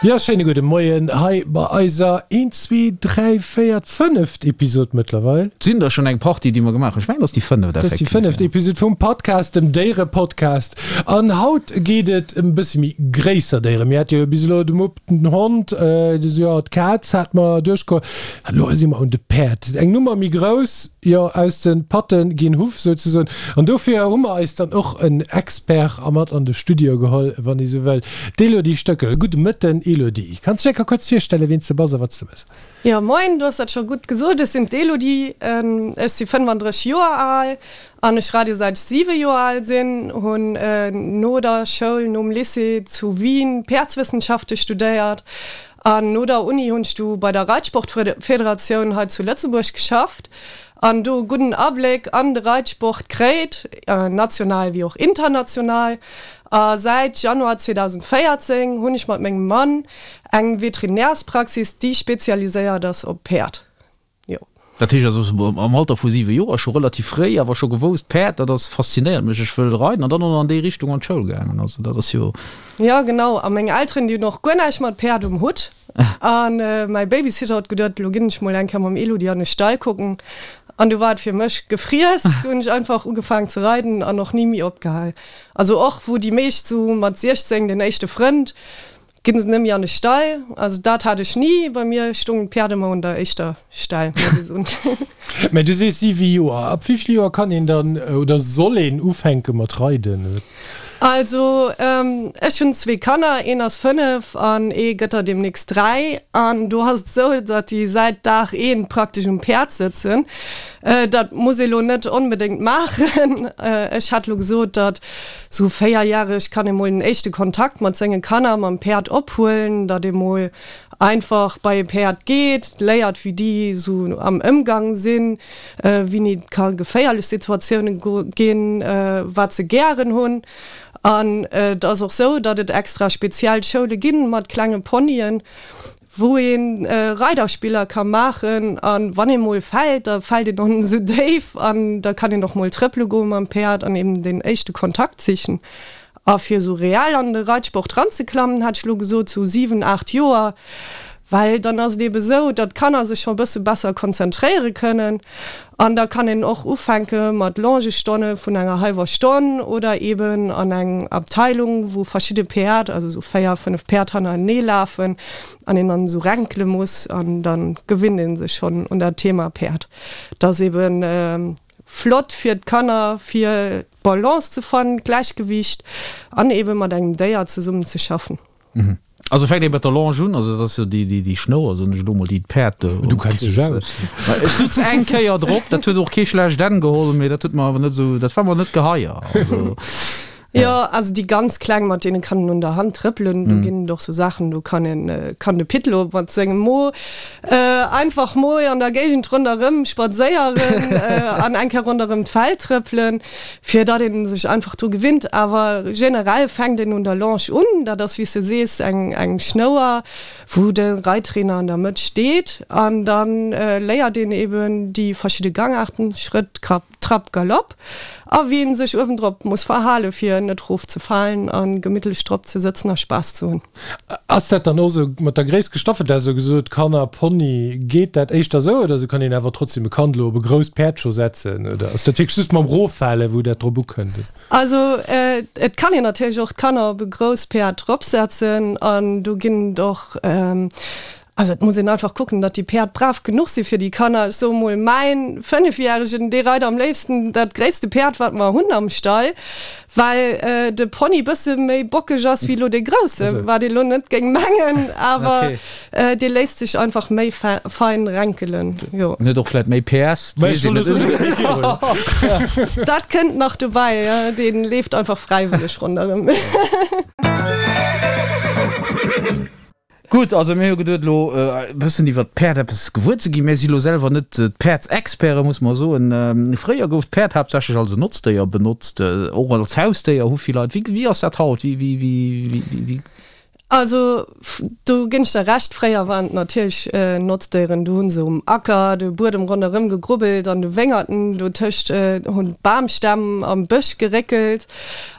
Jo, schéine gudde Moien hei bei eiser een, zwee, dräi, véier, fënneft Episod mëttlerweil. Et sinn der schonn eng Partie, déi mer gemaach hunn. Ech mengen, et ass déi fënneft effektiv. Dat ass déi fënneft Episod vum Podcast, dem Déierepodcast. An haut geet et ëm e bësse méi gréisser Déieren. Mir hate jo bis elo de Mupp, den Hond, jo, d'Kaz hate mer duerchgeholl. An elo si mer un de Päerd. Eng Nummer méi grouss, jo, aus de Patte ginn Huff souzesoen. An dofir hu mer eis dann och en Expert a mat an de Studio geholl, wann ee sou wëll. D'Elodie Stöckel, gudde Mëtten Elodie. Kanns dech eng Kéier kuerz virstellen, wien s de bass a wat s de mëss? Jo moin, du hues dat scho gutt gesot, ech sinn d'Elodie, ech si 35 Joer al an ech reide säit ech 7 Joer al sinn. Hunn no der Schoul, nom Lycée zu Wien Päerdswëssenschafte studéiert an no der Uni hunn ech du bei der Reitsportfederatioun hei zu Lëtzebuerg geschafft an do e gudden Abléck an de Reitsport kréit, national wéi och international. A säit Januar 2014 hunn ech mat mengem Mann eng Veterinärspraxis, déi spezialiséiert ass op Päerd. Jo. Dat heescht also, am Alter vu 7 Joer, scho relativ fréi, awer scho gewousst, Päerd, dat ass, faszinéiert mech, ech wëll reiden, an dann och nach an déi Richtung an d'Schoul gaangen. Also dat ass jo. Jo, genau. A meng Elteren, déi hunn och guer näischt mat Päerd um Hutt. A mäi Babysitter huet geduet, elo ginn ech mol eng Kéier mam Elodie an de Stall kucken. An du war et fir mech gefriess. Du hunn ech einfach ugefaangen ze reiden an och ni méi opgehal. Also och wou déi meescht sou mat 16 den éischte Frënd, ginn se net méi an de Stall. Also dat hat ech ni. Bei mir stoungen d'Päerd ëmmer un der éischter Stell, muss ech soen. Mä du sees 7 Joer. Ab wéi vill Joer kann een dann oder soll een ufänke mat reiden? Also ech hunn zwee Kanner, een ass 5 an ee gëtt der deemnächst 3. An do ass et esou, datt déi säit Dag eent praktesch um Päerd sëtzen. Dat muss ee lo net onbedéngt maachen. Ech hätt lo gesot, datt sou véierjäreg kann ee mol den éischte Kontakt mat senge Kanner mam Päerd ophuelen, datt ee mol einfach bei e Päerd geet, léiert wéi déi sou am Ëmgang sinn, wéini et ka geféierlech Situatioune ginn, wat se gären hunn. An et ass och sou, datt et extra speziell Schoule ginn mat klenge Ponyen, wou ee Reiderspiller ka maachen. A wann ee mol fält, da fält een och net esou déif an da kann een och mol trëppele goe mam Päerd an eben deen éischte Kontakt sichen. A fir esou reell an de Reitsport ranzeklammen, hätt ech elo gesot sou 7, 8 Joer, well dann ass et eebe sou, datt d'Kanner sech scho e bësse besser konzentréiere kënnen an da kann een och ufänke mat Longestonne vun enger hallwer Stonn oder eeben an eng Abteilung, wou verschidde Päerd, also sou 4, 5 Päerd hannerenee lafen an een dann esou renkele muss an da gewinnt ee sech schonn un dat Thema Päerd. Dat ass eeben flott fir d'Kanner, fir d'Balance ze fannen, d'Gläichgewiicht an eebe mat engem Déier zesummen ze schaffen. Also fänkt ee mat der Longe un, also dat ass jo déi Schnouer, soen ech elo mol, déi d'Päerd Du kenns dech aus. Ech sutz eng Kéier drop, dat huet och kee schlecht Enn geholl, mee dat huet mer awer net esou, dat war mer net geheier. Also. Jo, also déi ganz Kleng, mat deene kann een un der Hand trëppelen, do ginn et och sou Saachen, do kann een, kann de Pitlo mat sengem Mo einfach mol an der Géigend ronderëm spadséieren an eng Kéier ronderëm d'Feld trëppelen, fir datt een sech einfach dru gewinnt. Awer generell fänkt een un der Longe un, dat ass wéi s de sees eng eng Schnouer, wou de Reittrainer an der Mëtt steet an da léiert een eben déi verschidde Gangaarten, Schrëtt, Krapp, Trapp, Galopp a wéi een sech uewendrop muss verhale fir net rof ze falen a gemittlech drop ze sëtzen a Spaass ze hunn. Ass dat dann och sou mat der Gréisst gestaffelt, dat sou gesot Kanner, Pony, geet dat éischter sou oder sou kann een awer trotzdem e Kand elo op e grousst Päerd scho setzen oder ass dat wierklech just mam Roffale wou dat drop ukënnt? Also et kann een natierlech och d'Kanner op e grousst Päerd dropsetzen an do ginn et och Also et muss een einfach kucken, datt déi Päerd brav genuch si fir déi Kanner. Ech soe mol, mäin Fënnefjäregen, dee reit am léifsten dat gréisste Päerd, wat mer hunn am Stall, well de Pony bësse méi bockeg ass wéi elo dee grousse, wat ee lo net géing mengen, awer dee léisst sech einfach méi fein renkelen, jo. En huet och vläit méi PS, dat weess een net. Dat kënnt nach dobäi, jo, dee leeft einfach fräiwëlleg ronderëm. Gutt, also mir hu geduet elo e bëssen iwwert d'Päerd eppes gewuer ze ginn. Mir si lo selwer net d'Päerdsexperte muss mer soen. Fréier gouf d'Päerd haaptsächlech als en Notzdéier benotzt, och als Hausdéier hu vill Leit. Wéi ass dat haut? Wéi, wéi, wéi, wéi? Also do ginn ech der Recht, fréier waren et natierlech Notzdéieren. Do hu se um Acker de Buedem ronderëm gegrubbelt, an de Wéngerten dotëscht hunn d'Bamstämm am Bësch geréckelt.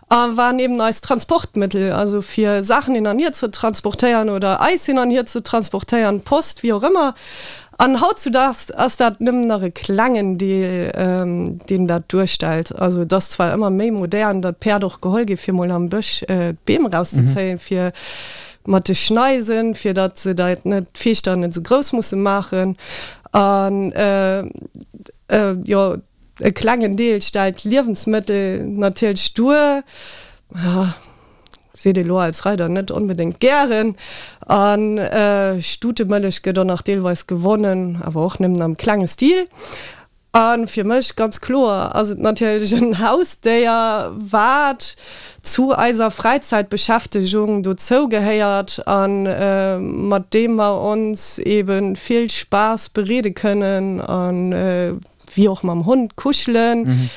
A waren eben eist Transportmëttel, also fir Saachen hin an hier ze transportéieren oder eis hin an hier ze transportéieren, Post, wéi och ëmmer. An hautzudaags ass dat nëmmen nach e klengen Deel, deen dat duerstellt. Also et ass zwar ëmmer méi modern, datt Päerd och geholl gi fir mol am Bësch d'Beem erauszezéien, fir mat de Schneisen, fir datt se dat net, d'Fiechter net esou grouss musse maachen. An jo, e klengen Deel stellt Liewensmëttel natierlech duer. Seet ee lo als Reider net onbedéngt gären. A Stutemëllech gëtt och nach deelweis gewonnen, awer och nëmmen am klenge Stil. A fir mech ganz kloer ass et natierlech en Hausdéier, wat zu eiser Fräizäitbeschäftegung dozou gehéiert a mat deem mer ons ebe vill Spaass bereede kënnen a wéi och mam Hond kuschelen.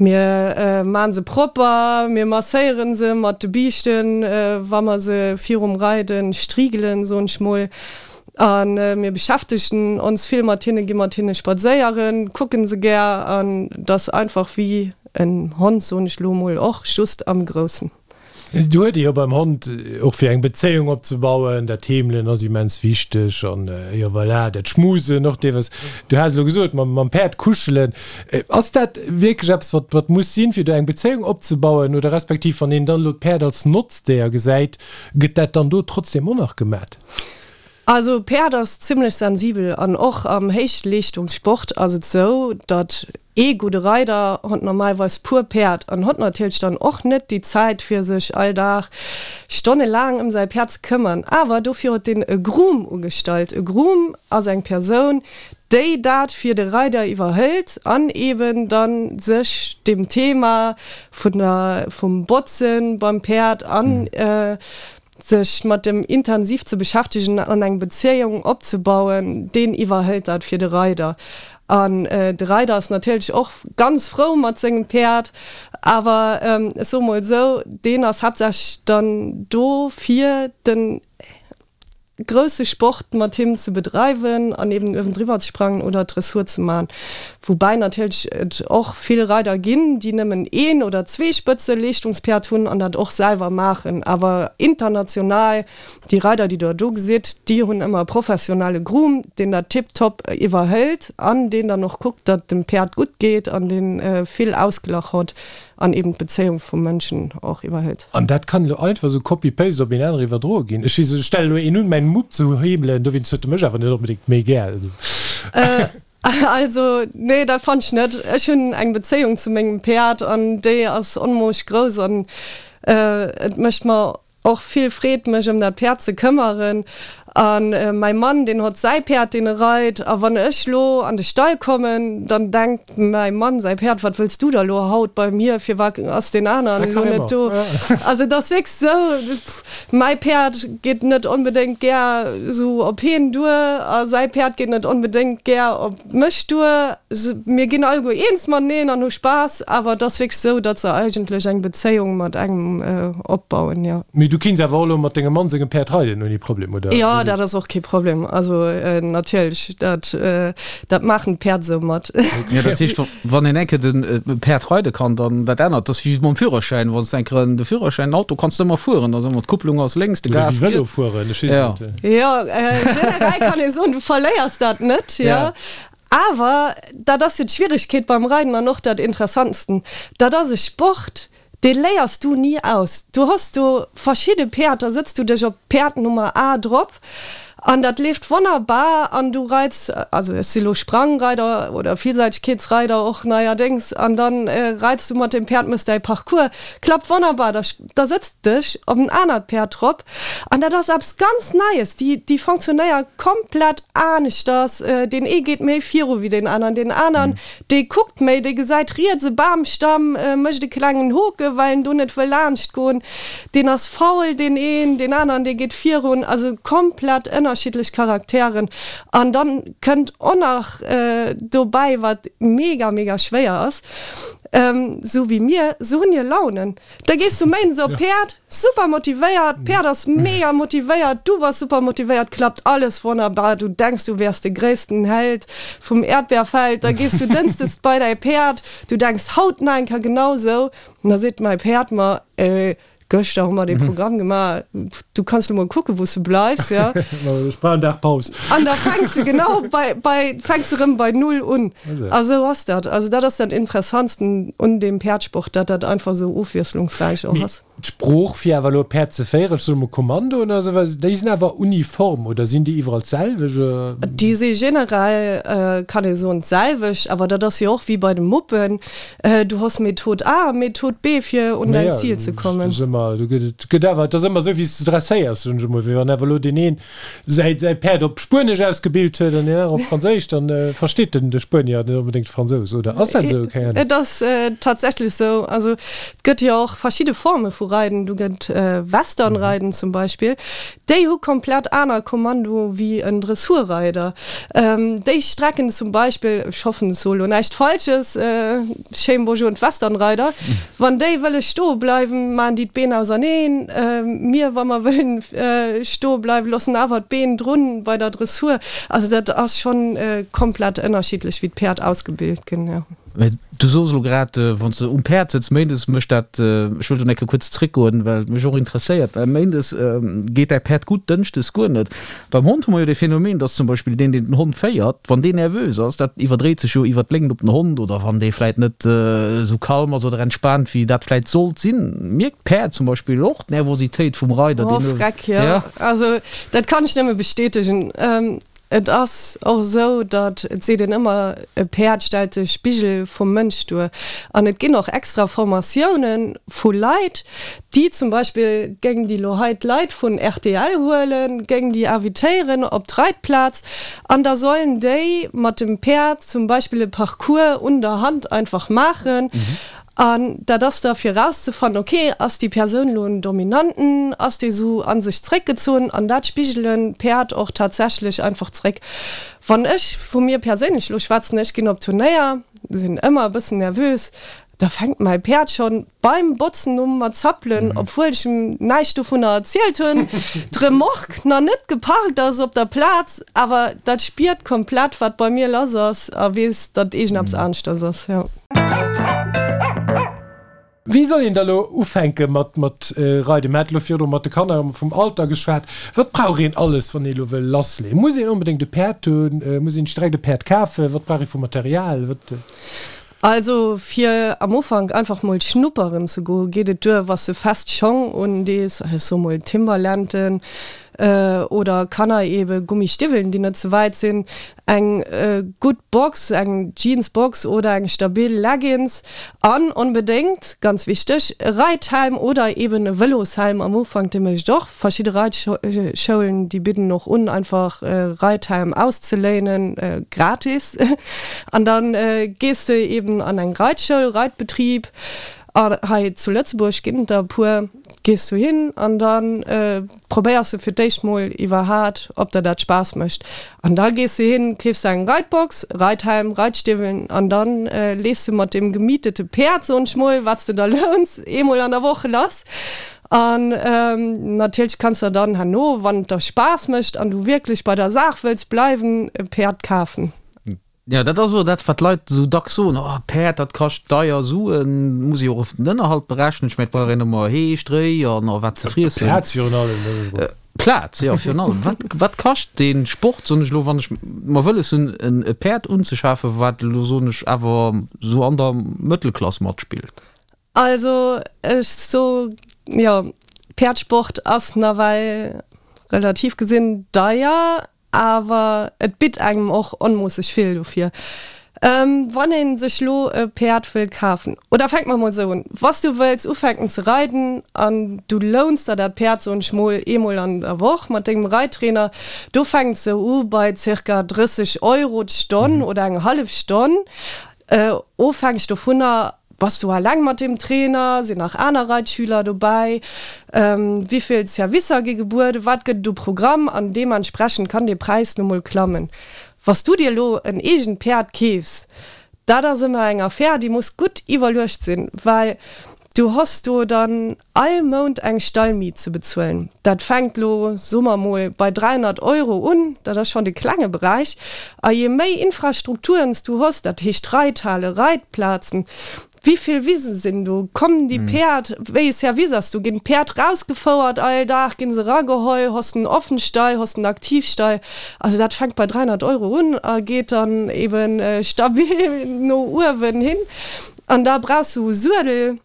Mir maan se propper, mir masséieren se mat de Biischten, wa mer se virum Reiden striegelen, soen ech mol. An mir beschäftegen ons vill mat hinnen, gi mat hinne spadséieren, kucken se gär an et ass einfach wéi en Hond, soen ech lo mol, och just am Groussen. Do huet ee jo beim Hond och fir eng Bezéiung opzebauen, dat Heemelen ass immens wichteg an jo voilà, dat Schmusen och deelweis. Du has elo gesot mam mam Päerd kuschelen. Ass dat wierklech eppes wat wat muss sinn, fir do eng Bezéiung opzebauen oder respektiv wann een dann elo d'Päerd als Notzdéier gesäit, gëtt dat dann do trotzdem och nach gemat? Also Päerd ass zimlech sensibel an och am Héichleeschtungssport ass et sou, datt ee gudde Reider hott normalweis puer Päerd an hott natierlech dann och net déi Zäit fir sech all Dag stonnelaang ëm säi Päerd ze këmmern. Awer dofir huet deen e Groom ugestallt. E Groom ass eng Persoun, déi dat fir de Reider iwwerhëlt an eben dann sech dem Thema vun der vum Botzen beim Päerd an Sech mat dem intensiv ze beschäftegen an eng Bezéiung opzebauen, deen iwwerhëlt dat fir de Reider. An de Reider ass natierlech och ganz frou mat sengem Päerd, awer ech soe mol esou, deen ass haaptsächlech dann do fir den grousse Sport mat him ze bedreiwen an eben uewendriwwer ze sprangen oder Dressur ze man. Woubäi natierlech et och vill Reider ginn, déi nëmmen een oder zwee Spëtzeleeschtungspäerd hunn an dat och selwer maachen. Awer international, déi Reider, déi Der do gesitt, déi hunn ëmmer e professionelle Groom, deen dat tiptop iwwerhëlt an deen dann och kuckt, datt dem Päerd gutt geet an dee vill Ausglach hott an eben d'Bezéiung vum Mënschen och iwwerhëlt. An dat kann elo einfach esou copy-paste op een anere iwwerdroe ginn. Ech stelle elo een un, mäin Mupp ze heemelen, dowéinst huet e mech awer net onbedéngt méi gär. Also nee, dat fannt ech net. Ech hunn eng Bezéiung zu mengem Päerd an déi ass onmoosch grouss an et mécht mer och vill Freed mech ëm dat Päerd ze këmmeren. A mäi Mann deen hott säi Päerd deen e reit a wann ech lo an de Stall kommen, dann denkt mäi Mann säi Päerd, wat wëlls du da lo haut bei mir, firwat ass deen aneren lo net do? Also et ass wierklech sou. Mäi Päerd geet net onbedéngt gär sou op heen duer a säi Päerd geet net onbedéngt gär op mech duer. Mir ginn alleguer eens mateneen an hu Spaass, awer et ass wierklech sou, datt se eigentlech eng Bezéiung mat engem opbauen, jo. Mee du kinns awer och elo mat dengem Mann sengem Päerd reiden ouni Problem, oder? Jo, dat ass och kee Problem. Also natierlech, dat dat maachen d'Päerd sou mat. Jo, dat heescht, Wann een eng Kéier de Päerd reide kann, dann dat anert, dat ass wéi mam Führerschäin, wann s de eng Kéier de Führerschäin, den Auto kanns de ëmmer fueren, da soe mer d'Kupplung ass lénks, de Gas riets. Oder wéi Vëlo fueren, ech weess net. Jo, generell kann ee soen, du verléiers dat net, jo. Awer dat ass jo d'Schwieregkeet beim Reiden an och dat Interessantsten, dat ass e Sport, Dee léiers du ni aus. Du hues do verschidde Päerd, da sëtz du dech op Päerd Nummer A drop an dat leeft wonnerbar an du reits, also ech si lo Sprangreider oder Vielseitegkeetsreider och neierdéngs, an dann reits du mat deem Päerd, mëss däi Parcours, klappt wonnerbar. Da da sëtz dech op en anert Päerd drop an dat ass eppes ganz Neies, déi déi fonctionnéier komplett aneschters, deen ee geet méi viru wéi deen aneren, deen aneren Dee kuckt méi, dee gesäit riets e Bamstamm, mécht e klengen Hoke well en do net wëll laanscht goen. Deen ass faul, deen een, deen aneren, dee geet virun. Also komplett ënnerschiddlech Charakteren. An dann kënnt och nach dobäi, wat mega, mega schwéier ass. Sou wéi mir, sou hunn hir Launen. Da gees du méindes op d'Päerd, super motivéiert, d'Päerd ass mega motivéiert, du bass super motivéiert, klappt alles wonnerbar, du denks du wäers de gréissten Held vum Äerdbeerfeld. Da gees du dënschdes bei däi Päerd, du denks haut nach eng Kéier genau sou, an da seet mäi Päerd mer, Gëschter hu mer dee Programm gemaach, du kanns lo mol kucken, wou s de bleifs, jo. Ech brauch en Dag Paus. An da fänks de genau bei, bei, fänks de rëm bei Null un. A sou ass dat. Also dat ass dat Interessantsten un deem Päerdsport, dat dat einfach sou ofwiesslungsräich och Mee ass. d'Sprooch, fir awer elo e Päerd ze féieren, ech soe mol Kommandoen oder sou, well déi sinn awer uniform, oder sinn déi iwwerall d'selwecht? Déi si generell, kann ee soen, d'selwecht, awer dat ass jo och wéi bei de Muppen. Du hues Method A a Method B fir un däin Ziel ze kommen. Dat ass ëmmer, do gëtt et gëtt awer, et ass ëmmer esou wéi s de dresséiers, soen ech emol. Wéi wann awer elo deen een säi säi Päerd op Spuenesch ausgebilt huet an deen aneren op Franséisch, dann versteet den de Spuenier net onbedéngt de Fransous, oder ass dat esou? Keng Ahnung. Et ass tatsächlech esou. Also et gëtt jo och verschidde Forme vu Reiden. Du gëtt Westernreiden zum Beispill. Déi hu komplett aner Kommando wéi en Dressurreider. Déi strecken zum Beispill, ech hoffen ech soe lo näischt Falsches, schéin Bonjour un d'Westernreider, wann déi wëlle stoe bleiwen, maachen déi d'Been auserneen. Mir, wa mer wëllen stoe bleiwen, loossen awer d'Been drun bei der Dressur. Also dat ass schonn komplett ënnerschiddlech wéi d'Päerd ausgebilt ginn, jo. Mä du soos elo grad, wann s de um Päerd sëtz méindes, mécht dat, ech wëll do eng Kéier kuerz zréckgoen, well et mech och interesséiert, well méindes geet däi Päerd gutt, dënschdes guer net. Beim Hond hu mer jo dee Phänomen, dass zum Beispill deen, deen den Hond féiert, wann deen nervös ass, dat iwwerdréit sech jo iwwer d'Léngt op den Hond, oder wann dee vläit net esou kalm ass oder entspaant, wéi dat vläit sollt sinn, mierkt d'Päerd zum Beispill och d'Nervositéit vum Reider, deen. Oh freck, jo. Also dat kann ech nëmme bestätegen. Et ass och esou, datt, et seet een ëmmer, e Päerd stellt de Spigel vum Mënsch duer. An et ginn och extra Formatioune vu Leit, déi zum Beispill, géing déi elo hei d'Leit vun rtl huelen, géing déi invitéieren op d'Reitplaz an da sollen déi mat dem Päerd zum Beispill e Parcours un der Hand einfach maachen. An dat ass da fir erauszefannen, ok, ass déi Persoun elo en Dominanten, ass déi esou a sech zréckgezunn? An dat spigelen d'Päerd och tatsächlech einfach zréck. Wann ech vu mir perséinlech elo schwätzen, ech ginn op Turnéier, sinn ëmmer e bëssen nervös, da fänkt mäi Päerd schonn beim Botzen u mat zappelen, obwuel ech em näischt dovunner erzielt hunn, d'Remorque nach net geparkt ass op der Plaz, awer dat spiert komplett, wat bei mir lass ass a weess, datt iergendeppes aneschters ass, jo. Wéi soll een da lo ufänke mat mat reiden? Mir hate lo virdru mat de Kanner vum Alter geschwat. Wat brauch een alles, wann ee lo wëll lassleeën? Muss een onbedéngt e Päerd hunn? Muss een sech direkt e Päerd kafen? Wat brauch ee vu Material? Wat. Also fir am Ufank einfach mol schnupperen ze goen, geet et duer, wa s de fest Schong undees, ech soe mol Timberlanden oder Kanner ebe Gummistiwwelen, déi net ze wäit sinn. Eng gutt Box, eng Jeansbox oder eng stabil Leggings an onbedéngt, ganz wichteg, e Reithelm oder eben e Vëloshelm am Ufank, dee mécht och. Verschidde Reitschoulen, déi bidden och un, einfach e Reithelm auszeléinen, gratis. An da gees de eben an eng Reitschoul, Reitbetrib, hei zu Lëtzebuerg ginn et der e puer, gees du hin an da probéiers de fir d'éischt mol iwwerhaat ob der dat Spaass mécht an da gees de hin, keefs der eng Reitbox, Reithelm, Reitstiwwelen an dann lees de mat deem gemietete Päerd, soen ech mol, wat s de der louns, eemol an der Woch lass an natierlech kanns der dann herno, wann et der Spaass mécht an du wierklech bei der Saach wëlls bleiwen, e Päerd kafen. Jo, dat ass och dat, wat d'Leit esou dacks soen, Oh, Päerd, dat kascht deier Suen, muss ee jo och den Ënnerhalt berechnen. Ech mengen, et brauch een ëmmer Hee, Stréi an och wat ze friessen. Plaz virun allem, dat ass och. Plaz, jo, virun allem. Wat, wat kascht dee Sport, soen ech elo, wann ech mer wëlles hunn, e Päerd unzeschafen, wat elo, soen ech, awer esou an der Mëttelklass matspillt? Also, ech so, jo, Päerdsport ass nawell relativ gesinn deier. Awer et bitt engem och onmoosseg vill dofir. Wann een sech lo e Päerd wëll kafen, oder fänke mer mol esou un, Wanns du wëlls ufänken ze reiden an du louns der dat Päerd, soen ech mol, eemol an der Woch mat dengem Reittrainer, do fänkt se u bei zirka 30 Euro d'Stonn oder eng hallef Stonn. Ofhängeg dovunner, bass du alleng mat deem Trainer, sinn nach aner Reitschüler dobäi, wéivill Servicer gi gebueden, wat gëtt et u Programm an deementsprechend kann dee Präis nu mol klammen. Wa s du dir elo en eegent Päerd keefs, Dat ass ëmmer eng Affär, déi muss gutt iwwerluecht sinn, well du hos do dann all Mount eng Stallmiet ze bezuelen. Dat fänkt lo, soe mer mol, bei 300 Euro un, dat ass schonn de klenge Beräich. A je méi Infrastrukturen s du hos, dat heescht Reithale, Reitplazen, Wéi vill Wisen sinn do? Kommen déi Päerd, wéi e Service ass do? Ginn d'Päerd rausgefouert all Dag? Ginn se erageholl? Hoss de en Offenstall? Hoss de en Aktivstall? Also dat fänkt bei 300 Euro un a geet dann eben stabil no uewen hin. An da brauchs du e Suedel.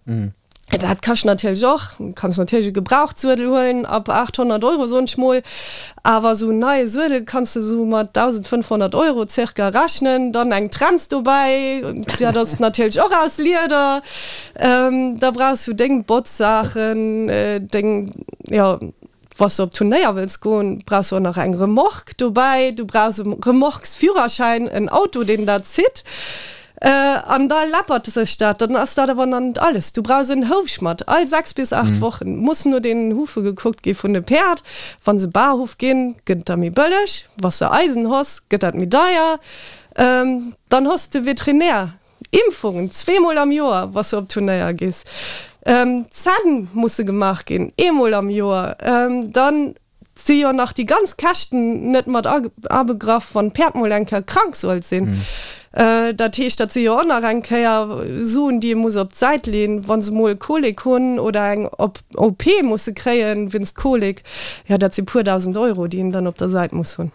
Dat kascht natierlech och. Du kanns natierlech e Gebrauchtsuedel huelen ab 800 Euro, soen ech mol. Awer esou en neie Suedel kanns de esou mat 1.500 Euro zirka rechnen. Dann eng Trenz dobäi, dat ass natierlech och aus Lieder. Da brauchs du deng Botzsaachen, deng, jo, wa s de op Turnéier wëlls goen, brauchs du och nach eng Remorque dobäi. Du brauchs e Remorquesführerschäin, en Auto, deen dat zitt. An da läppert sech dat. Dann ass dat awer nach net alles. Du brauchs en Houfschmatt. All 6 bis 8 Wochen muss no den Hufe gekuckt gi vun de Päerd. Wa se Barhuf ginn, gëtt et da méi bëlleg. Wa s de Eisen hoss, gëtt dat méi deier. Dann hoss de Veterinär. Impfungen, zweemol am Joer, wa s de op Turnéier gees. Zänn musse gemaach ginn, eemol am Joer. Dann si jo nach déi ganz Käschten net mat abegraff, wann d'Päerd mol eng Kéier krank sollt sinn. Dat heescht, dat si jo och nach eng Kéier Suen, déi ee muss op d'Säit leeën, wa se mol Kolik hunn oder eng OP musse kréien wéinst Kolik. Jo, dat si puer 1.000 Euro, déi een dann op der Säit muss hunn.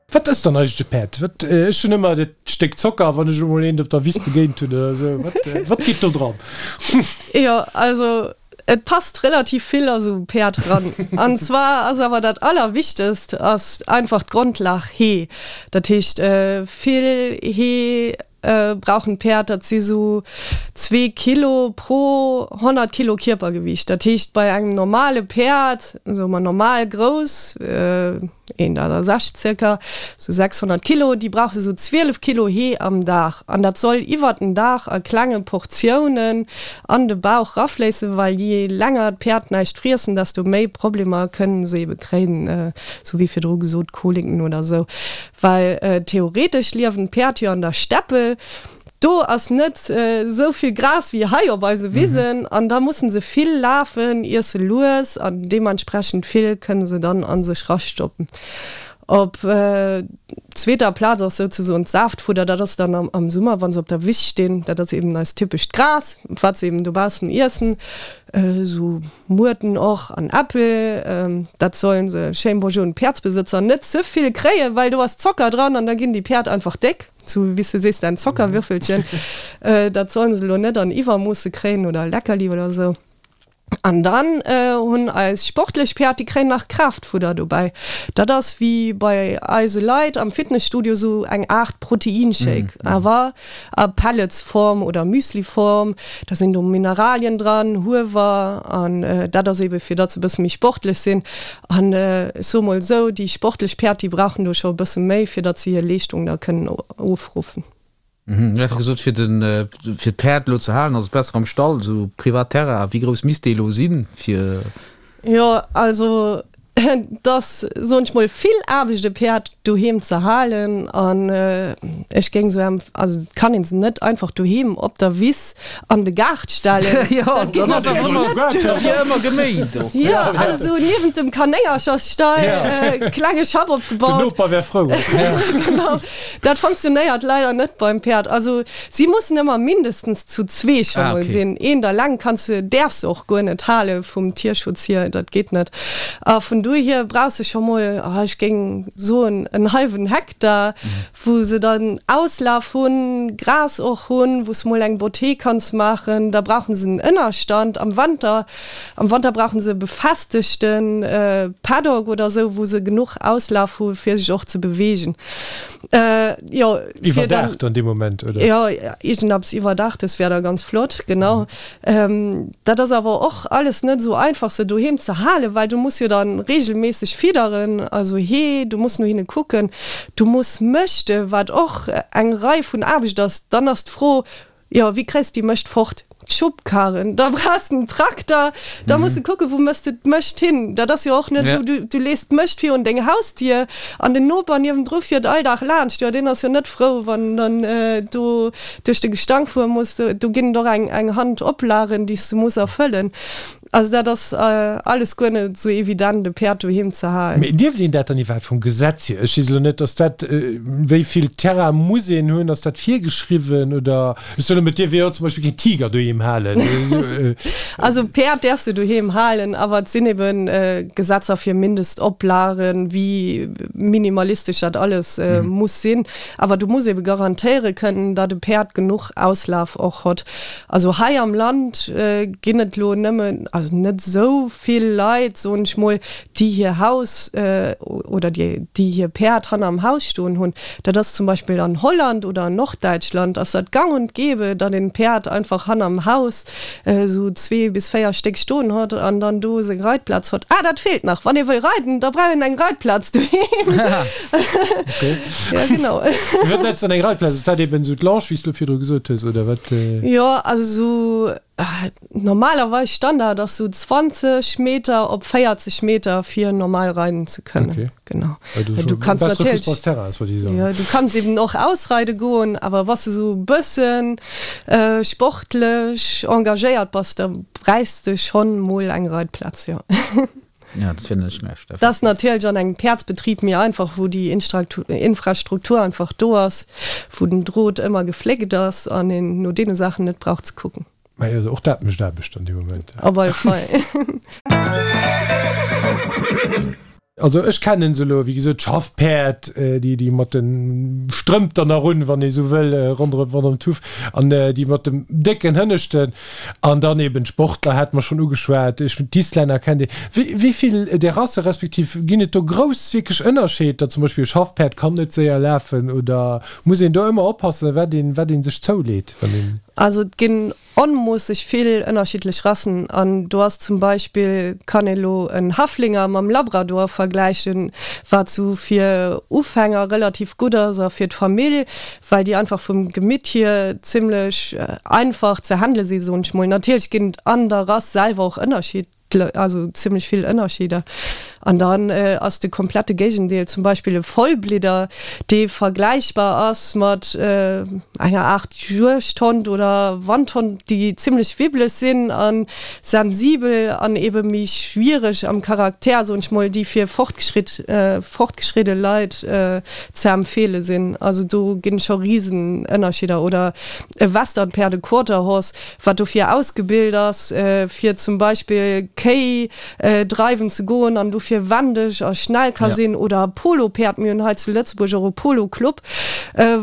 Wat ass dann eigentlech e Päerd? Wat, ech hunn ëmmer dat Stéck Zocker, wann ech emol eent op der Wiss begéint hunn oder esou. Wat, wat geet do dran? Jo, also et passt relativ vill a sou e Päerd ran. An zwar ass awer dat Allerwichtegst ass einfach d'Grondlag Hee. Dat heescht vill Hee brauchen d'Päerd, dat si sou zwee Kilo pro 100 Kilo Kierpergewiicht. Dat heescht bei engem normale Päerd, soe mer normal grouss, 1,60 zirka, sou 600 Kilo, déi brauche sou 12 Kilo Hee am Dag. An dat soll iwwert den Dag a klenge Portiounen an de Bauch rafléissen, well jee länger d'Päerd näischt friessen, desto méi Problemer kënnen se ebe kréien, sou wéi virdru gesot, Koliken oder sou. Well theoretesch liewen d'Päerd jo an der Steppe, do ass net esou vill Gras wéi hei op eise Wisen an da mussen se vill lafen, iesse lues an deementsprechend vill kënne se dann a sech rastoppen. Op zweeter Plaz ass souzesoen d'Saaftfudder, dat ass dann am Summer, wa se op der Wiss stinn, dat ass eben eist typescht Gras, wat se eben dobaussen iessen, esou Muerten och an Äppel, dat sollen se, schéin bonjour un d'Päerdsbesëtzer, net ze vill kréien, well do ass Zocker dran an da ginn déi Päerd einfach déck, sou wéi s de sees, däin Zockerwürfelchen, dat sollen se elo net an Iwwermoosse kréien oder Leckerli oder sou. An dann hunn eis sportlech Päerd, déi kréien nach Kraaftfudder dobäi, dat ass wéi bei eise Leit am Fitnesstudio sou eng Aart Proteinshake, awer A Pelletsform oder Müsliform, da sinn do Mineralien dran, Huewer, an dat ass ebe fir datt se e bësse méi sportlech sinn. An ech soe mol esou, déi sportlech Päerd, déi brauchen do scho e bësse méi, fir datt se hir Leeschtung da kënnen ofruffen. Dir hat gesot, fir den, fir d'Päerd elo ze halen, ass et besser am Stall, esou privat Terrain. Wéi grouss misst dee elo sinn, fir. Jo, also Et ass, soen ech mol, vill Aarbecht e Päerd doheem ze halen an ech géing sou empf, also et kann een se net einfach doheem op der Wiss an de Gaart stellen. Jo, Dat geet dat ass natierlech ëmmer, net duer. wier ëmmer geméint och. Jo, also niewent dem Kanéngerchersstall, klenge Schapp Den opgebaut. Noper wär frou. Genau, dat funktionéiert leider net beim Päerd. Also si mussen ëmmer mindestens zu zwee scho Ah, mol okay. sinn. Eent alleng kanns du, däerfs de och guer net hale vum Tierschutz hier, dat geet net. A vun dohier brauchs de scho mol, ech géing soen, en hallwen Hektar, wou se dann Auslaf hunn, Gras och hunn, wou s mol eng Botté kanns maachen. Da brauche se en Ënnerstand am Wanter. Am Wanter brauche se e befestegte Paddock oder esou, wou se genuch Auslaf hu fir sech och ze beweegen. Jo, fir dann. Iwwerdaacht dann dee Moment, oder? Jo, iergendeppes Iwwerdaachtes wär da ganz flott, genau. Dat ass awer och alles net esou einfach se doheem ze halen, well du muss jo dann regelméisseg fidderen, also Hee, du muss no hinne kucken, du muss mëschte wat och eng Rei vun Aarbecht ass. Dann ass d'Fro, jo wéi kréis de déi Mëscht fort? D'Schubkarren, da brauchs de en Trakter, da muss de kucken, wou mëss de d'Mëscht hin. Dat ass jo och net esou, du, du lees d'Mëscht virun deng Hausdier an den Noper niewendru fiert all Dag laanscht. Jo, deen ass jo net frou, wann en dann do duerch de Gestank fuere muss. Do ginn et och eng, eng Hand Oplagen, déi s de muss erfëllen. Also dat ass alles guer net esou evident, e Päerd doheem ze halen. Mee dierft een dat dann iwwerhaapt vum Gesetz hier? Ech weess elo net, ass dat, wéi vill Terrain muss een hunn, ass dat virgeschriwwen oder? Ech soen elo, et dierf ee jo zum Beispill keen Tiger doheem halen. Also Päerd däerfs de doheem halen, awer et sinn ebe Gesetzer fir Mindestoplagen, wéi minimalistesch dat alles muss sinn. Awer du muss ebe garantéiere kënnen, datt e Päerd genuch Auslaf och hott. Also hei am Land ginn et elo nëmmen, also net esou vill Leit, soen ech mol, déi hir Haus oder déi déi hir Päerd hanner am Haus stoen hunn. Dat ass zum Beispill an Holland oder an Norddäitschland ass dat gang und gäbe, datt een Päerd einfach hanner am Haus esou zwee bis véier Stéck stoen hott an dann do seng Reitplaz hott. Ah, dat feelt nach, wann ee wëll reiden, da brauch een eng Reitplaz doheem. Okay. Ja, genau. Wat nenns du dann eng Reitplaz? Ass dat eben esou d'Longe, wéi s du virdru gesot hues, oder wat? Jo, also esou normalerweis Standard ass sou 20 Meter op 40 Meter fir normal reiden ze kënnen. Okay. Genau. Also du kanns natierlech ja, du kanns eben och ausreide goen, awer wann s du sou e bëssen sportlech engagéiert bass, da bräichs de schonn mol eng Reitplaz, jo. Ja, dat wier net schlecht. Dat ass natierlech an engem Päerdsbetrib méi einfach, wou déi Infrastruktur einfach do ass, wou den Drot ëmmer gefléckt ass an een no deene Saachen net brauch ze kucken. Mä jo, och dat mécht Aarbecht an deem Moment. Op alle Fall. Also ech kennen se elo, wéi gesot, d'Schaffpäerd, déi déi mat de Strëmp dann nach un, wann ee sou wëll, ronderëm ronderëm d'Huff an déi mat dem décken Hënneschten. An dann eben d'Sportler hate mer schonn ugeschwat. Ech mengen, d'Islänner kennt ee. Wéi, wéi vill där Rasse respektiv ginn et do grouss wierklech Ënnerscheed, zum Beispill e Schaffpäerd kann net séier lafen oder muss een do ëmmer oppassen, wat een, wat ee sech zouleet, wann een. Also et ginn onmoosseg vill ënnerschiddlech Rassen an do ass zum Beispill, kann ee lo en Haflinger mam Labrador vergläichen, wat sou fir Ufänger relativ gutt ass a fir d'Famill, well déi einfach vum Gemitt hier zimlech einfach ze handele sinn, soen ech mol. Natierlech ginn et an der Rass selwer och Ënnerschied, also zimlech vill Ënnerscheeder. An dann ass de komplette Géigendeel zum Beispill e Vollblidder, dee vergläichbar ass mat enger Aart Juegdhond oder Wandhond, déi zimlech wibbeleg sinn a sensibel an ebe méi schwiereg am Charakter, soen ech mol, déi fir fortgeschritt, fortgeschridde Leit ze empfeele sinn. Also do ginn scho risen Ënnerscheeder. Oder e Westernpäerd, e Quarter Horse, wat dofir ausgebilt ass, fir zum Beispill Kéi dreiwen ze goen an dofir wendeg a schnell ka sinn. Oder e Polopäerd, mir hunn hei zu Lëtzebuerg och e Polo-Club,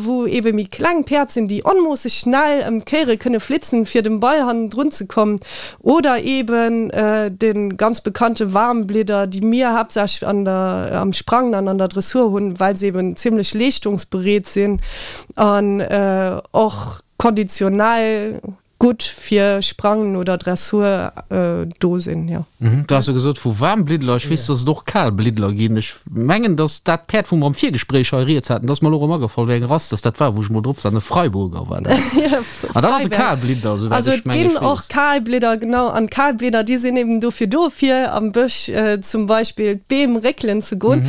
wou ebe méi kleng Päerd sinn, déi onmoosseg schnell ëm d'Kéiere kënne flitzen, fir dem Ball hannendrun ze kommen. Oder eben de ganz bekannte Waarmblidder, déi mir haaptsächlech an der, am Sprangen an an der Dressur hunn, well se eben zimlech leeschtungsbereet sinn an och konditionell gutt fir Sprangen oder Dressur do sinn, jo. Du has jo gesot vu Waarmbliddler, ech weess, dass et och Kalbliddler ginn. Ech mengen, dass dat Päerd, wou mer am Virgespréich hei rieds haten, dat ass mer elo erëm agefall, wéi eng Rass dass dat war, wou ech emol drop war, e Freiburger war dat. Ah, dat ass e Kalblidder, esouwäit Also ech et mengen, ginn ech och weess. Kalblidder, genau. An d'Kalblidder, déi sinn eben dofir do, fir am Bësch zum Beispill d'Beem réckelen ze goen,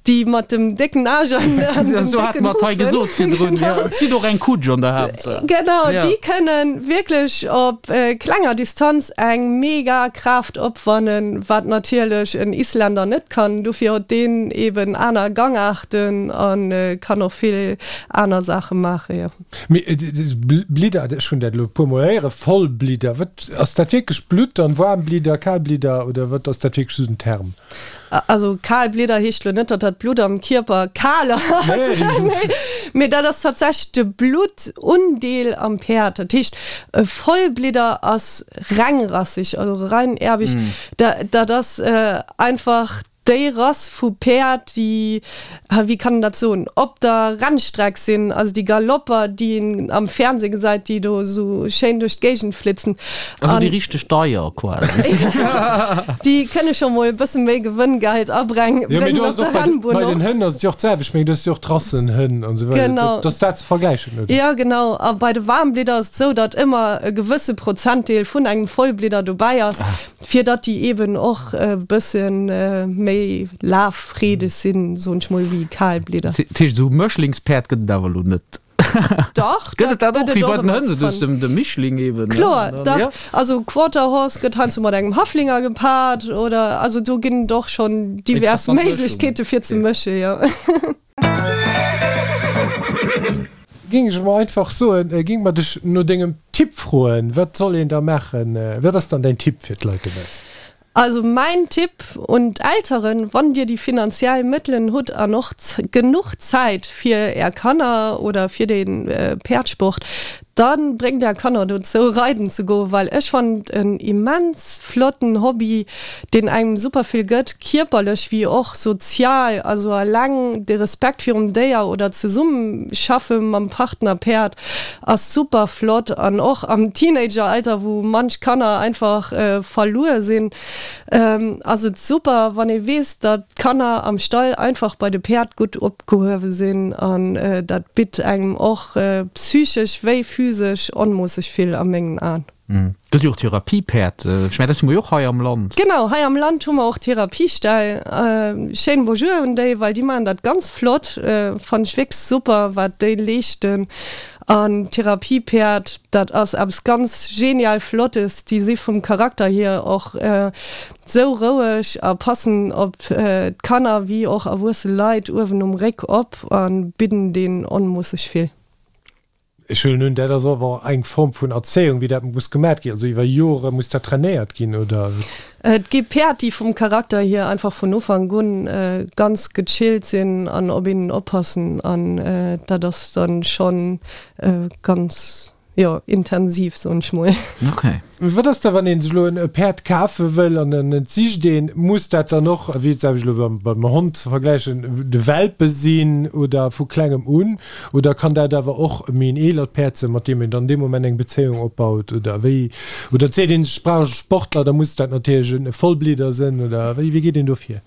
déi mat dem décken Aarsch an an dem Esou hate décken mer et hei Hufen. gesot virdrun, jo. Genau. Et zitt och eng Kutsch an der Haaptsaach. Genau, Ja. déi kënnen wierklech op klenger Distanz eng mega Kraaft opwannen, wat natierlech en Isländer net kann. Dofir huet deen eben aner Gangaarten a kann och vill aner Saache maachen, jo. Mee Blidder, ech hunn dat elo e puer mol héieren, Vollblidder, wat ass dat wierklech Blutt dann, Waarmblidder, Kalblidder oder wat ass dat wierklech esou den Term? Also Kalblidder heescht elo net, datt dat Blutt am Kierper kal ass, nee, mee dat ass tatsächlech de Bluttundeel am Päerd. Dat heescht e Vollblidder ass rengrasseg, also reinerbig, dat ass einfach. Déi Rass vu Päerd, déi, wéi kann een dat soen, op der Rennstreck sinn, also déi Galopper, déi een am Fernseh gesäit, déi do esou schéin duerch d'Géigend flitzen. Also déi richteg deier quasi. Déi kënne scho mol e bësse méi Gewënngeld abrengen Jo, mee do op ass der och bei, Rennbunn bei den och. Hënn ass et jo och d'selwecht, ech mengen, do hues du jo och d'Rassenhënn an esou weider. Genau. Dat ass dat ze vergläichen, oder? Jo, genau. A bei de Waarmblidder ass et esou, datt ëmmer e gewësse Prozentdeel vun engem Vollblidder dobäi ass. Fir datt déi eben och e bësse méi laffreedeg sinn, soen ech mol, wéi Kalblidder. Dat heescht, esou Mëschlingspäerd gëtt et awer elo net? Dach, Gëtt et dat och, wéi bei den Hënn, esou de, de Mischling eben? Kloer, dach. Also Quarter Horse gëtt heiansdo mat engem Haflinger gepaart oder, also do ginn et och schonn divers Méiglechkeete fir ze mëschen, jo. Géing ech emol einfach soen, géing mer dech no dengem Tipp froen. Wat soll een da maachen? Wat ass dann däin Tipp fir d'Leit dobaussen? Also mäin Tipp un d'Elteren, Wann dir déi finanziell Mëttelen hutt an och genuch Zäit fir är Kanner oder fir de Päerdsport, da bréngt är Kanner dozou reiden ze goen, well ech fannen et en immens flotten Hobby, deen engem super vill gëtt, kierperlech wéi och sozial, also alleng de Respekt virum Déier oder d'Zesummeschaffe mam Partner Päerd ass super flott an och am Teenageralter, wou manch Kanner einfach verluer sinn, ass et super wann ee weess, datt d'Kanner am Stall einfach bei de Päerd gutt opgehuewe sinn an dat bitt engem och psychesch wéi physesch onmoosseg vill a mengen Aen. Gëtt jo och Therapiepäerd. Ech mengen, dat hu mer jo och hei am Land. Genau, hei am Land hu mer och Therapieställ. Schéinen Bonjour un déi, well déi maachen dat ganz flott. Fannen ech wierklech super, wat déi leeschten. An Therapiepäerd, dat ass eppes ganz genial Flottes. Déi si vum Charakter hier och sou roueg a passen op d'Kanner wéi och erwuesse Leit uewen um Réck op a bidden deen onmoosseg vill. Ech huelen un, dat ass awer eng Form vun Erzéiung, wéi dat muss gemat ginn. Also iwwer Jore muss dat trainéiert ginn, oder? Et gi Päerd, déi vum Charakter hier einfach vun Ufank un ganz gechillt sinn an op een oppassen an dat ass dann schonn ganz, jo, intensiv, soen ech mol. Okay. Wat ass da wann een sech elo e Päerd kafe wëll an en et sicht een, muss dat dann och, wéi et sag ech elo beim Hond ze vergläichen, de Welpe sinn oder vu klengem un oder kann dat awer och méi en eelert Päerd sinn, mat deem een dann dee Moment eng Bezéiung opbaut oder wéi? Oder seet een ech brauch e Sportler, da muss dat natierlech e Vollblidder sinn oder wéi geet een do vir?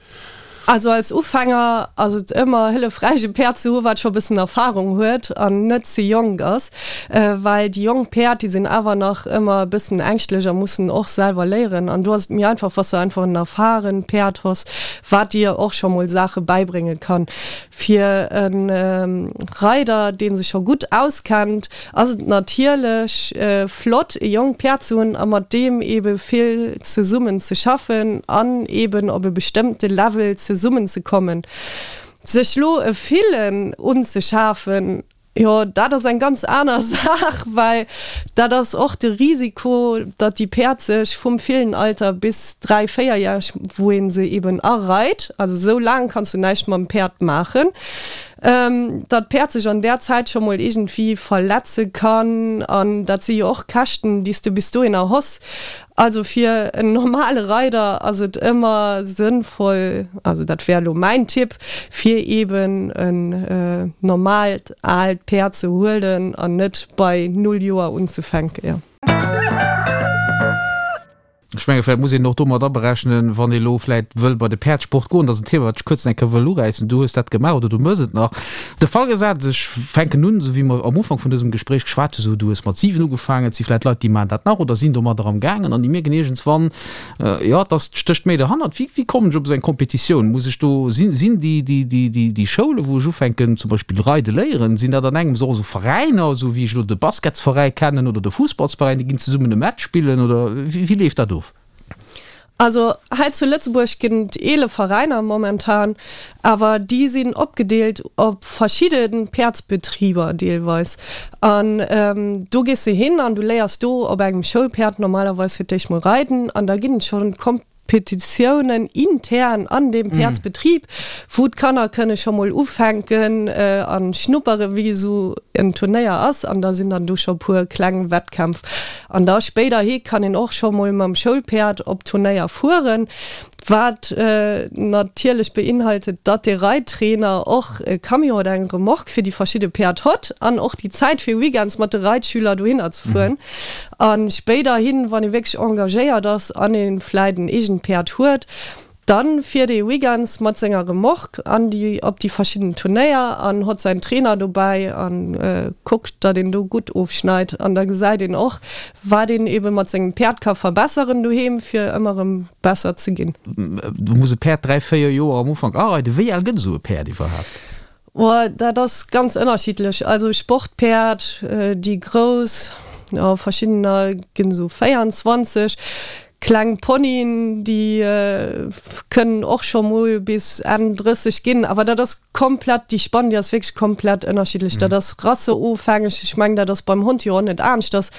Also als Ufänger ass et ëmmer hëllefräich e Päerd ze hu wat scho bëssen Erfahrung huet an net ze jonk ass, well déi jonk Päerd déi sinn awer nach ëmmer e bëssen ängschtlech a mussen och selwer léieren an do ass et méi einfach wa s de einfach en erfahrent Päerd hues wat dir och scho mol Saache bäibrénge kann. Fir e Reider, dee sech scho gutt auskennt, ass et natierlech flott, e jonkt Päerd ze hunn a mat deem eebe vill zesummen ze schaffen an eeben op e bestëmmte Level zesummen ze kommen. Sech lo e Villen unzeschafen, jo, dat ass eng ganz aner Saach, well dat ass och de Risiko, datt déi Päerd sech vum Villenalter bis 3, 4 järeg, wou ee se eeben areit, also esou laang kanns du näischt mam Päerd maachen, datt d'Päerd sech an där Zäit scho mol iergendwéi verletze kann an dat si jo och Käschten, déi s de bis dohinner hoss. Also fir en normale Reider ass et ëmmer sënnvoll, also dat wär elo mäin Tipp, fir eeben en normaalt aalt Päerd ze huelen an net bei null Joer unzefänken, jo. Ech menge vläicht muss een och do mat aberechnen, wann ee elo vläicht wëll bei de Päerdsport goen, dat ass en Thema, wat ech kuerz eng Kéier wëll uräissen, du hues dat gemaach oder du méchs et nach, de Fall gesat, ech fänken un, esou wéi mer am Ufank vun dësem Gespréich geschwat hunn, esou du hues mat 7 ugefaangen, et si vläicht Leit, déi maachen dat nach oder sinn domadder am gaangen an déi mierken iergendswann, jo, et ass, stécht méi derhannert. Wéi, wéi kommen ech op esou eng Competitioun? Muss ech do, sinn, sinn déi, déi, déi, déi, déi Schoulen, wou ech ufänken zum Beispill reide léieren, sinn dat an engems och esou Veräiner, esou wéi ech elo de Basketsveräi kennen oder de Fussballsveräin, déi ginn zesummen e Match spillen oder wéi, wéi leeft dat of? Also hei zu Lëtzebuerg ginn et 11 Veräiner momentan, awer déi sinn opgedeelt op verschidde Päerdsbetriber deelweis. An do gees de hin an du léiers do op engem Schoulpäerd normalerweis fir d'éischt mol reiden an da ginn et schonn Kompetitiounen intern an deem Päerdsbetrib, wou d'Kanner kënne scho mol ufänken a schnuppere wéi esou en Turnéier ass an da sinn dann do scho puer kleng Wettkämpf. An da spéiderhi kann een och scho mol mam Schoulpäerd op Turnéier fueren, wat natierlech beinhaltet, datt de Reittrainer och e Camion oder eng Remorque fir déi verschidde Päerd hott an och déi Zäit fir weekends mat de Reitschüler dohinner ze fueren. A spéiderhin, wann ee wierklech engagéiert ass an ee vläit en eegent Päerd huet, Dann fiert ee weekends mat senger Remorque an déi op déi verschidden Turnéier an hott säin Trainer dobäi an kuckt datt een do gutt ofschneit an da gesäit een och wat een eben mat sengem Päerd ka verbesseren doheem fir ëmmer erëm besser ze ginn. Do muss e Päerd 3, 4 Joer am Ufank areiden. Wéi al gëtt esou e Päerd iwwerhaapt? Oh, dat ass ganz ënnerschiddlech. Also Sportpäerd, déi grouss, jo verschiddener ginn esou 24. Kleng Ponyen, déi kënnen och scho mol bis Enn 30 ginn. Awer dat ass komplett, déi Spann, déi ass wierklech komplett ënnerschiddlech. Dat ass rasseofhängeg. Ech mengen, dat ass beim Hond jo och net aneschters,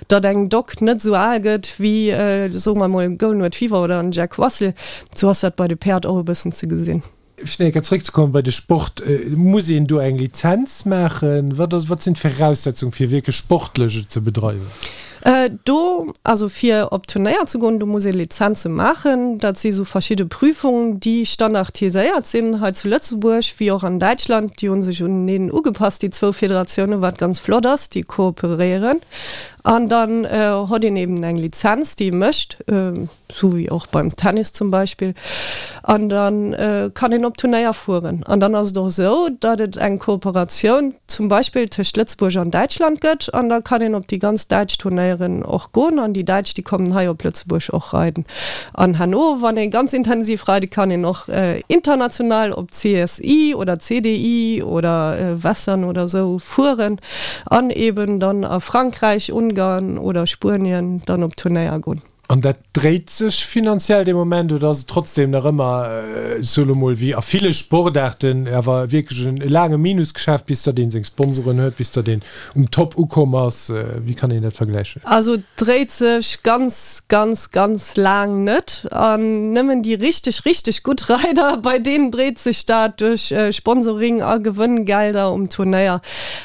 datt eng Dog net esou al gëtt wéi, soe mer emol, e Golden Retriever oder en Jack Russell. Esou ass dat bei de Päerd och e bëssen ze gesinn. Fir nach eng Kéier zréckzekommen bei de Sport, Muss een do eng Lizenz maachen? Wat ass, wat sinn d'Viraussetzungen, fir wierklech sportlech et ze bedreiwen? Do, also fir op Turnéier ze goen, do muss ee Lizenze maachen. Dat si sou verschidde Prüfungen, déi standardiséiert sinn hei zu Lëtzebuerg wéi och an Däitschland. Déi hu sech uneneen ugepasst, déi zwou Federatiounen, wat ganz flott ass. Déi kooperéieren an dann hott een eben eng Lizenz, déi ee mécht. Sou wéi och beim Tennis zum Beispill. An da kann een op Turnéier fueren. An dann ass et och esou, datt et eng Kooperatioun zum Beispill tëscht Lëtzebuerg an Däitschland gëtt. An da kann een op déi ganz däitsch Turnéieren och goen. An déi Däitsch, déi kommen hei op Lëtzebuerg och reiden. An herno, wann ee ganz intensiv reide kann een och international op CSI oder CDI oder Western oder esou fueren an eben dann a Frankräich, Ungarn oder Spuenien dann op Turnéier goen. An dat dréit sech finanziell dee Moment oder ass et trotzdem nach ëmmer, ech soe lo mol, wéi a ville Sportaarten, awer wierklech e laange Minusgeschäft, bis datt ee seng Sponsoren huet, bis datt een um Top ukomm ass? Wéi kann een dat vergläichen? Also et dréit sech ganz, ganz, ganz laang net. An nëmmen déi richteg, richteg gutt Reider, bei deenen dréit sech dat duerch Sponsoring a Gewënngelder um Turnéier.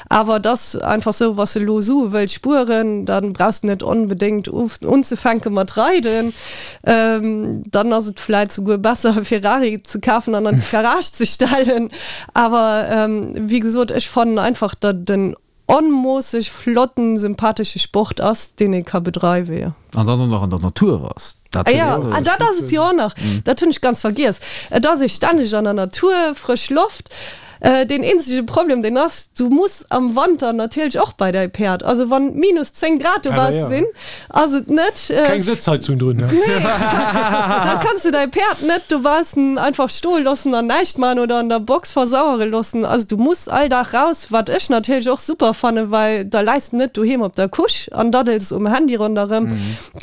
Awer et ass einfach sou, wa s de elo Sue wëlls spueren, da brauchs de net onbedéngt unzefänke mat reiden. Dann ass et vläit souguer besser e Ferrari ze kafen an an d'Garage ze stellen. Awer wéi gesot, ech fannen einfach, datt et en onmoosseg flotten, sympathesche Sport ass, deen ee ka bedreiwen, jo. An dann och nach an der Natur ass. Dat ah ja, ah, dat ass et jo och nach. Dat hunn ech ganz vergiess. Et ass ee stänneg an der Natur, frësch Loft. Deen eenzege Problem deen ass, du muss am Wanter natierlech och bei däi Päerd. Also wann minus 10 Grad dobausse sinn, ass et net. Ass keng Sëtzheizung drun, ne? Nee. Da kanns du däi Päerd net dobaussen einfach stoe loossen an näischt maachen oder an der Box versauere loossen. Also du muss all Dag raus, wat ech natierlech och super fannen, well da läis de net doheem op der Couche an daddels um Handy ronderëm.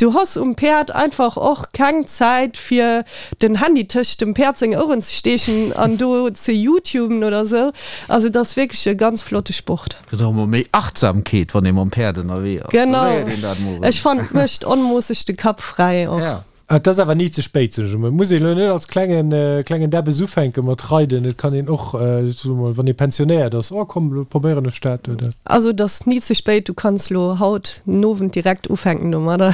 Du hoss um Päerd einfach och keng Zäit fir den Handy tëscht dem Päerd seng Oueren ze steechen an do ze youtuben oder sou. Also et ass wierklech e ganz flotte Sport. Gëtt och emol méi Achtsamkeet wann ee mam Päerd ënnerwee ass. Genau, ech fannen et mécht onmoosseg de Kapp fräi och. Et ass awer ni ze spéit, soen ech emol. Et muss een elo net als klengen klengen Däbbes ufänke mat reiden. Et kann een och, soe mol, wann ee pensionéiert ass, oh komm, elo probéieren ech dat, oder? Also et ass ni ze spéit, du kanns elo haut den Owend direkt ufänken domadder.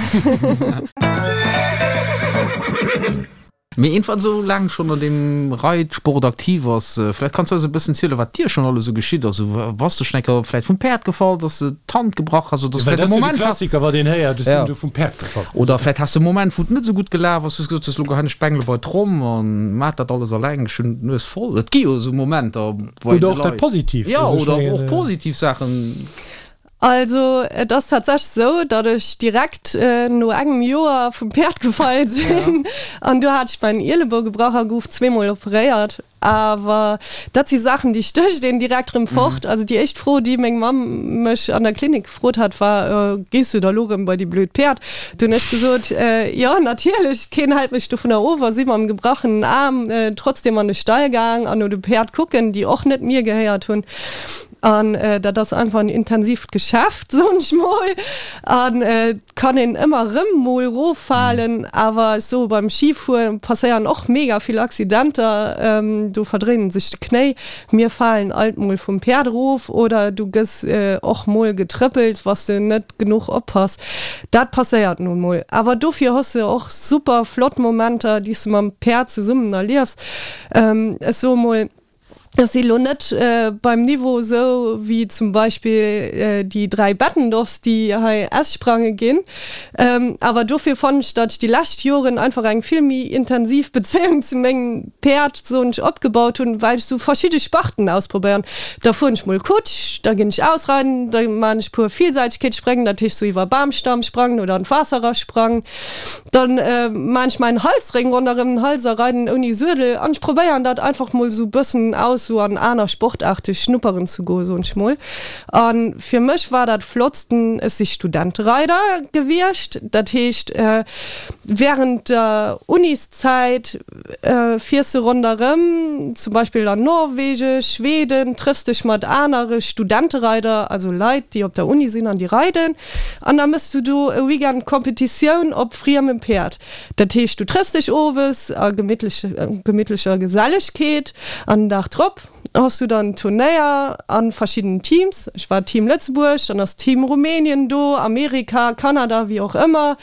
Mee een wat esou laang schonn an deem Reitsport aktiv ass, vläicht kanns du eis e bëssen zielen, wat dir schonn alles esou geschitt ass. Bass de schonn eng Kéier vläicht vum Päerd gefall, dass de d'Hand gebrach has oder dass du vläicht e Moment has. Klassiker, wat een héiert, ech sinn do vum Päerd gefall. Oder vläicht has de e Moment, wou et net esou gutt gelaf ass, wou s gesot hues, elo geheien ech d'Bengele bei d'Tromm an maach dat alles alleng, ech hunn d'Nues voll. Et gi jo esou Momenter bei de Leit. Oder och dat Positiivt. Jo, oder och positiv Saachen. Also et ass tatsächlech esou, datt ech direkt no engem Joer vum Päerd gefall sinn an do hat ech mäin Ielebou gebrach a gouf zweemol operéiert. Awer dat si Saachen, déi stécht een direkt erëm fort. Also déi éischt Fro, déi meng Mamm mech an der Klinik gefrot hat, war, Gees du da lo erëm bei déi blöd Päerd? Du hunn ech gesot, Jo, natierlech, keen hält mech dovunner of a si mam gebrachenen Aarm trotzdem an de Stall gaang an no de Päerd kucken, déi och net mir gehéiert hunn. An dat ass einfach en intensiivt Geschäft, soen ech mol. An et kann een ëmmer erëm mol eroffalen. Awer ech soe beim Schifuere passéieren och mega vill Accidenter. Do verdréinen sech de Knéi. Mir falen alt mol vum Päerd erof oder du gëss och mol getrëppelt, wa s de net genuch oppass. Dat passéiert nun mol. Awer dofir hues de och super flott Momenter, déi s de mam Päerd zesummen erliefs. Ech soe mol, Ech si lo net beim Niveau esou wéi zum Beispill déi 3 Bettendorfs, déi hei S-Sprange ginn. Awer dofir fannen ech, datt ech déi lescht Joren einfach eng vill méi intensiv Bezéiung zu mengem Päerd, soen ech, opgebaut hunn, well ech sou verschidde Sparten ausprobéieren. Da fueren ech mol Kutsch, da ginn ech ausreiden, da maachen ech puer Vielseitegkeetsspréng, dat heescht sou iwwer Bamstamm sprangen oder an d'Waasser erasprangen. Dann maan ech mäin Halsréng ronderem den Hals a reiden ouni Suedel an ech probéieren dat einfach mol sou bëssen aus sou an aner Sportaarte schnupperen ze goen, soen ech mol. An fir mech war dat flottsten, ech si Studentereider gewiescht, dat heescht während der Uniszäit fiers de ronderëm, zum Beispill an Norwegen, Schweden, trëffs dech mat anere Studentereider, also Leit déi op der Uni sinn an déi reiden. An da mëss du do e Weekend Competitioun op friemem Päerd. Dat heescht, du trëffs dech owes a gemittlecher Gesellegkeet an den Dag drop hues du dann Turnéier a verschiddenen Teams. Ech war Team Lëtzebuerg, dann ass Team Rumänien do, Amerika, Kanada, wéi och ëmmer.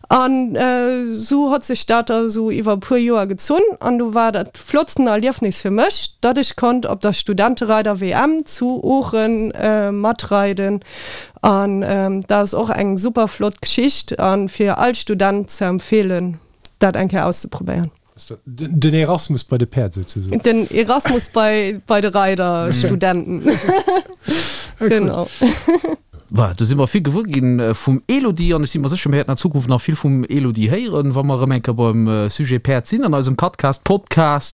An esou hott sech dat da esou iwwer e puer Joer gezunn an du war dat flottsten Erliefnis fir mech, datt ech konnt op der Studentereider-WM zu Oochen matreiden An dat ass och eng super flott Geschicht a fir all Student ze empfeelen, dat eng Kéier auszeprobéieren. Den Erasmus bei de Päerd souzesoen. Den Erasmus bei bei de Reiderstudenten. Genau. Voilà, do si mer vill gewuer ginn vum Elodie an ech si mer sécher, mir wäerten an Zukunft nach vill vum Elodie héieren, wa mer erëm eng Kéier beim Sujet Päerd sinn an eisem Podcast Podcast.